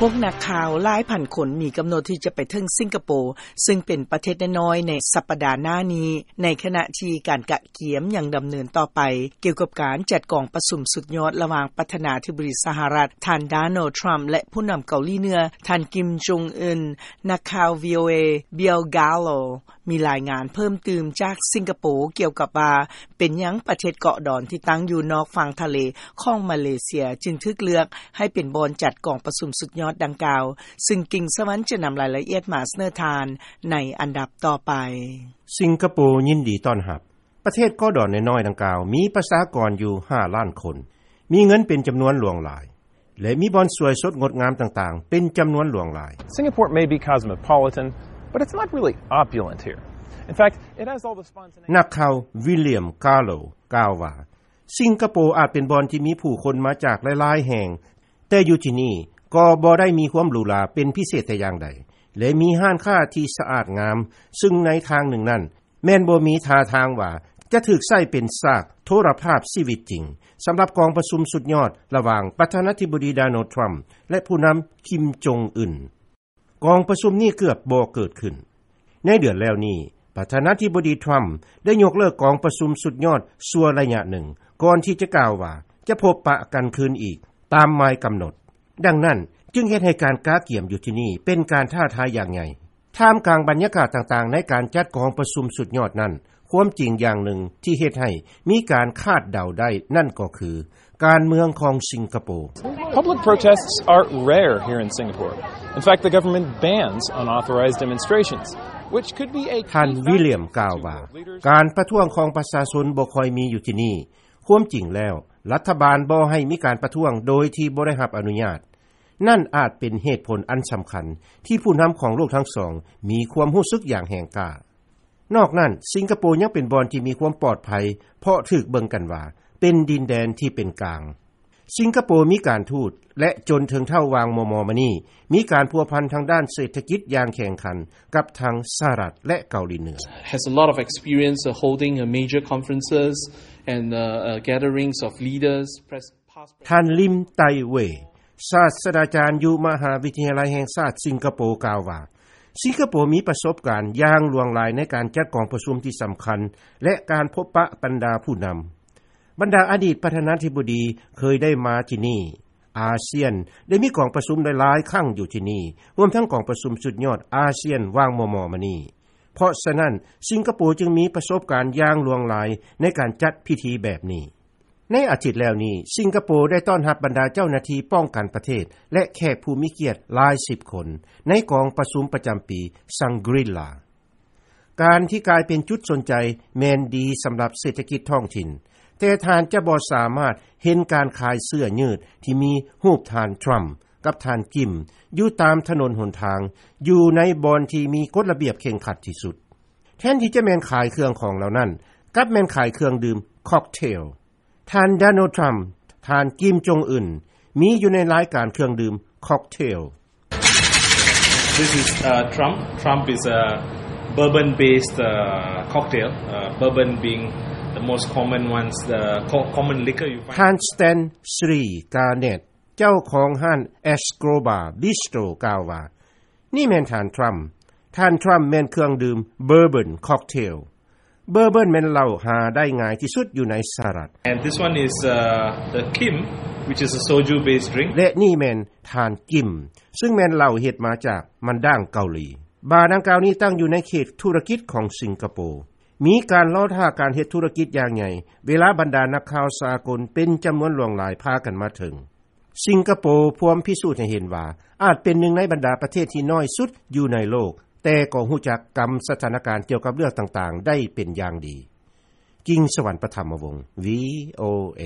ພວກນັກຂ່າວຫຼາຍພັນຄົນມີກຳນົດທີ່ຈະໄປເຖິງສິງກະໂປ ຊຶ່ງເປັນປະເທດນ້ອຍໆ ໃນສັບປະດາໜ້ານີ້ ໃນຂະນະທີ່ການກະກຽມຍັງດຳເນີນຕໍ່ໄປ ກ່ຽວກັບການຈັດກອງປະຊຸມສຸດຍອດລະຫວ່າງປະທານາທິບໍດີສະຫະລັດ ທ່ານ ໂດນັລ ທຣຳ ແລະ ຜູ້ນຳເກົາຫຼີເໜືອ ທ່ານ ກິມ ຈົງອຶນ. ນັກຂ່າວ ວີໂອເອ ບິວ ກາໂລ ມີລາຍງານເພີ່ມຕື່ມຈາກສິງກະໂປ ກ່ຽວກັບວ່າ ເປັນຫຍັງປະເທດເກາະດອນທີ່ຕັ້ງຢູ່ນອກຝັ່ງທະເລຂອງມາເລເຊຍ ຈຶ່ງຖືກເລືອກໃຫ້ເປັນບ່ອນຈັດກອງປະຊຸມສຸດຍອດດັ່ງກ່າວ, ຊຶ່ງກິ່ງສະຫວັນຈະນຳລາຍລະອຽດມາສະເໜີທ່ານໃນອັນດັບຕໍ່ໄປ. ສິງກະໂປຍິນດີຕ້ອນຮັບ. ປະເທດເກາະດອນນ້ອຍໆດັ່ງກ່າວ ມີປະຊາກອນຢູ່ຫ້າລ້ານຄົນ, ມີເງິນເປັນຈຳນວນຫຼວງຫຼາຍ ແລະ ມີບ່ອນສວຍສົດງົດງາມຕ່າງໆ ເປັນຈຳນວນຫຼວງຫຼາຍ. Singapore may be cosmopolitan, but it's not really opulent here. In fact, it has all the spontaneity. ນັກຂ່າວ ວິລຽມ ກາໂລ ກ່າວວ່າ ສິງກະໂປອາດເປັນບ່ອນທີ່ມີຜູ້ຄົນມາຈາກຫຼາຍໆແຫ່ງ, ແຕ່ຢູ່ທີ່ນີ້ກໍບໍ່ໄດ້ມີຄວາມຫຼູຫຼາເປັນພິເສດແຕ່ຢ່າງໃດ ແລະ ມີຮ້ານຄ້າທີ່ສະອາດງາມ, ຊຶ່ງໃນທາງໜຶ່ງນັ້ນ ແມ່ນບໍ່ມີທ່າທາງວ່າຈະຖືກໃຊ້ເປັນສາກໂທລະພາບຊີວິດຈິງ ສຳລັບກອງປະຊຸມສຸດຍອດລະຫວ່າງປະທານາທິບໍດີ ໂດນັລ ທຣຳ ແລະ ຜູ້ນຳ ກິມ ຈົງອຶນ. ກອງປະຊຸມນີ້ເກືອບບໍ່ເກີດຂຶ້ນ. ໃນເດືອນແລ້ວນີ້, ປະທານາທິບໍດີ ທຣຳ ໄດ້ຍົກເລີກກອງປະຊຸມສຸດຍອດຊົ່ວໄລຍະໜຶ່ງ ກ່ອນທີ່ຈະກ່າວວ່າຈະພົບປະກັນຄືນອີກຕາມໝາຍກຳນົດ. ດັ່ງນັ້ນ, ຈຶ່ງເຮັດໃຫ້ການກະກຽມຢູ່ທີ່ນີ້ເປັນການທ້າທາຍຢ່າງໃຫຍ່. ທ່າມກາງບັນຍາກາດຕ່າງໆໃນການຈັດກອງປະຊຸມສຸດຍອດນັ້ນ, ຄວາມຈິງຢ່າງໜຶ່ງທີ່ເຮັດໃຫ້ມີການຄາດເດົາໄດ້ນັ້ນກໍຄື ການເມືອງຂອງສິງກະໂປ. Public protests are rare here in Singapore. In fact, the government bans unauthorized demonstrations, which could be a key factor. ທ່ານ ວິລຽມ ກ່າວວ່າ ການປະທ້ວງຂອງປະຊາຊົນບໍ່ຄ່ອຍມີຢູ່ທີ່ນີ້. ຄວາມຈິງແລ້ວ, ລັດຖະບານບໍ່ໃຫ້ມີການປະທ້ວງໂດຍທີ່ບໍ່ໄດ້ຮັບອະນຸຍາດ. ນັ້ນອາດເປັນເຫດຜົນອັນສຳຄັນທີ່ຜູ້ນຳຂອງໂລກທັງສອງມີຄວາມຮູ້ສຶກຢ່າງແຮງກ້າ. ນອກນັ້ນ, ສິງກະໂປຍັງເປັນບ່ອນທີ່ມີຄວາມປອດໄພ ເພາະຖືກເບິ່ງກັນວ່າເປັນດິນແດນທີ່ເປັນກາງ. ສິງກະໂປມີການທູດ ແລະ ຈົນເຖິງເທົ່າຫວ່າງມໍ່ໆມານີ້ ມີການພົວພັນທາງດ້ານເສດຖະກິດຢ່າງແຂງຂັນກັບທັງສະຫະລັດ ແລະ ເກົາຫຼີເໜືອ. Has a lot of experience, uh, holding, uh, major conferences and, uh, uh, gatherings of leaders, pres-, past ທ່ານ ລິມ ໄຕເວ ສາດສະດາຈານຢູ່ມະຫາວິທະຍາໄລແຫ່ງຊາດສິງກະໂປ ກ່າວວ່າ ສິງກະໂປມີປະສົບການຢ່າງຫຼວງຫຼາຍໃນການຈັດກອງປະຊຸມທີ່ສຳຄັນ ແລະ ການພົບປະບັນດາຜູ້ນຳ. ບັນດາອະດີດປະທານາທິບໍດີເຄີຍໄດ້ມາທີ່ນີ້. ອາຊຽນໄດ້ມີກອງປະຊຸມຫຼາຍໆຄັ້ງຢູ່ທີ່ນີ້, ຮວມທັງກອງປະຊຸມສຸດຍອດອາຊຽນຫວ່າງມໍ່ໆມານີ້. ເພາະສະນັ້ນ, ສິງກະໂປຈຶ່ງມີປະສົບການຢ່າງຫຼວງຫຼາຍໃນການຈັດພິທີແບບນີ້. ໃນອາທິດແລ້ວນີ້, ສິງກະໂປໄດ້ຕ້ອນຮັບບັນດາເຈົ້າໜ້າທີ່ປ້ອງກັນປະເທດ ແລະ ແຂກຜູ້ມີກຽດຫຼາຍສິບຄົນ ໃນກອງປະຊຸມປະຈຳປີ Shangri-La. ການທີ່ກາຍເປັນຈຸດສົນໃຈແມ່ນດີສຳລັບເສດຖະກິດທ້ອງຖິ່ນ, ແຕ່ທ່ານຈະບໍ່ສາມາດເຫັນການຂາຍເສື້ອຍືດທີ່ມີຮູບທ່ານທຣຳກັບທ່ານກິມ ຢູ່ຕາມຖະໜົນຫົນທາງ ຢູ່ໃນບ່ອນທີ່ມີກົດລະບຽບເຄັ່ງຄັດທີ່ສຸດ. ແທນທີ່ຈະແມ່ນຂາຍເຄື່ອງຂອງເຫຼົ່ານັ້ນ, ກັບແມ່ນຂາຍເຄື່ອງດື່ມ cocktail. ທ່ານ ໂດນັລ ທຣຳ, ທ່ານ ກິມ ຈົງອຶນ ມີຢູ່ໃນລາຍການເຄື່ອງດື່ມ cocktail. This is, uh, Trump. Trump is a bourbon-based, uh, cocktail, uh, bourbon being the most common ones, the co-, common liquor you find. ທ່ານ ສະແຕນ ຊີ ກາເນັດ ເຈົ້າຂອງຮ້ານ Escobar Bistro ກ່າວວ່າ ນີ້ແມ່ນທ່ານທຣຳ. ທ່ານທຣຳແມ່ນເຄື່ອງດື່ມ Bourbon Cocktail. Bourbon ແມ່ນເຫຼົ້າຫາໄດ້ງ່າຍທີ່ສຸດຢູ່ໃນສະຫະລັດ. And this one is, uh, the Kim, which is a soju-based drink. ແລະ ນີ້ແມ່ນທ່ານກິມ, ຊຶ່ງແມ່ນເຫຼົ້າເຮັດມາຈາກມັນດ້າງເກົາຫຼີ. ບາດັ່ງກ່າວນີ້ຕັ້ງຢູ່ໃນເຂດທຸລະກິດຂອງສິງກະໂປ. ມີການລໍຖ້າການເຮັດທຸລະກິດຢ່າງໃຫຍ່ ເວລາບັນດານັກຂ່າວສາກົນເປັນຈຳນວນຫຼວງຫຼາຍພາກັນມາເຖິງ. ສິງກະໂປພວມພິສູດໃຫ້ເຫັນວ່າ ອາດເປັນໜຶ່ງໃນບັນດາປະເທດທີ່ນ້ອຍສຸດຢູ່ໃນໂລກ, ແຕ່ກໍຮູ້ຈັກກຳສະຖານະການກ່ຽວກັບເລື່ອງຕ່າງໆໄດ້ເປັນຢ່າງດີ. ກິງສະຫວັນ ປະຖຳມະວົງ ວີໂອເອ.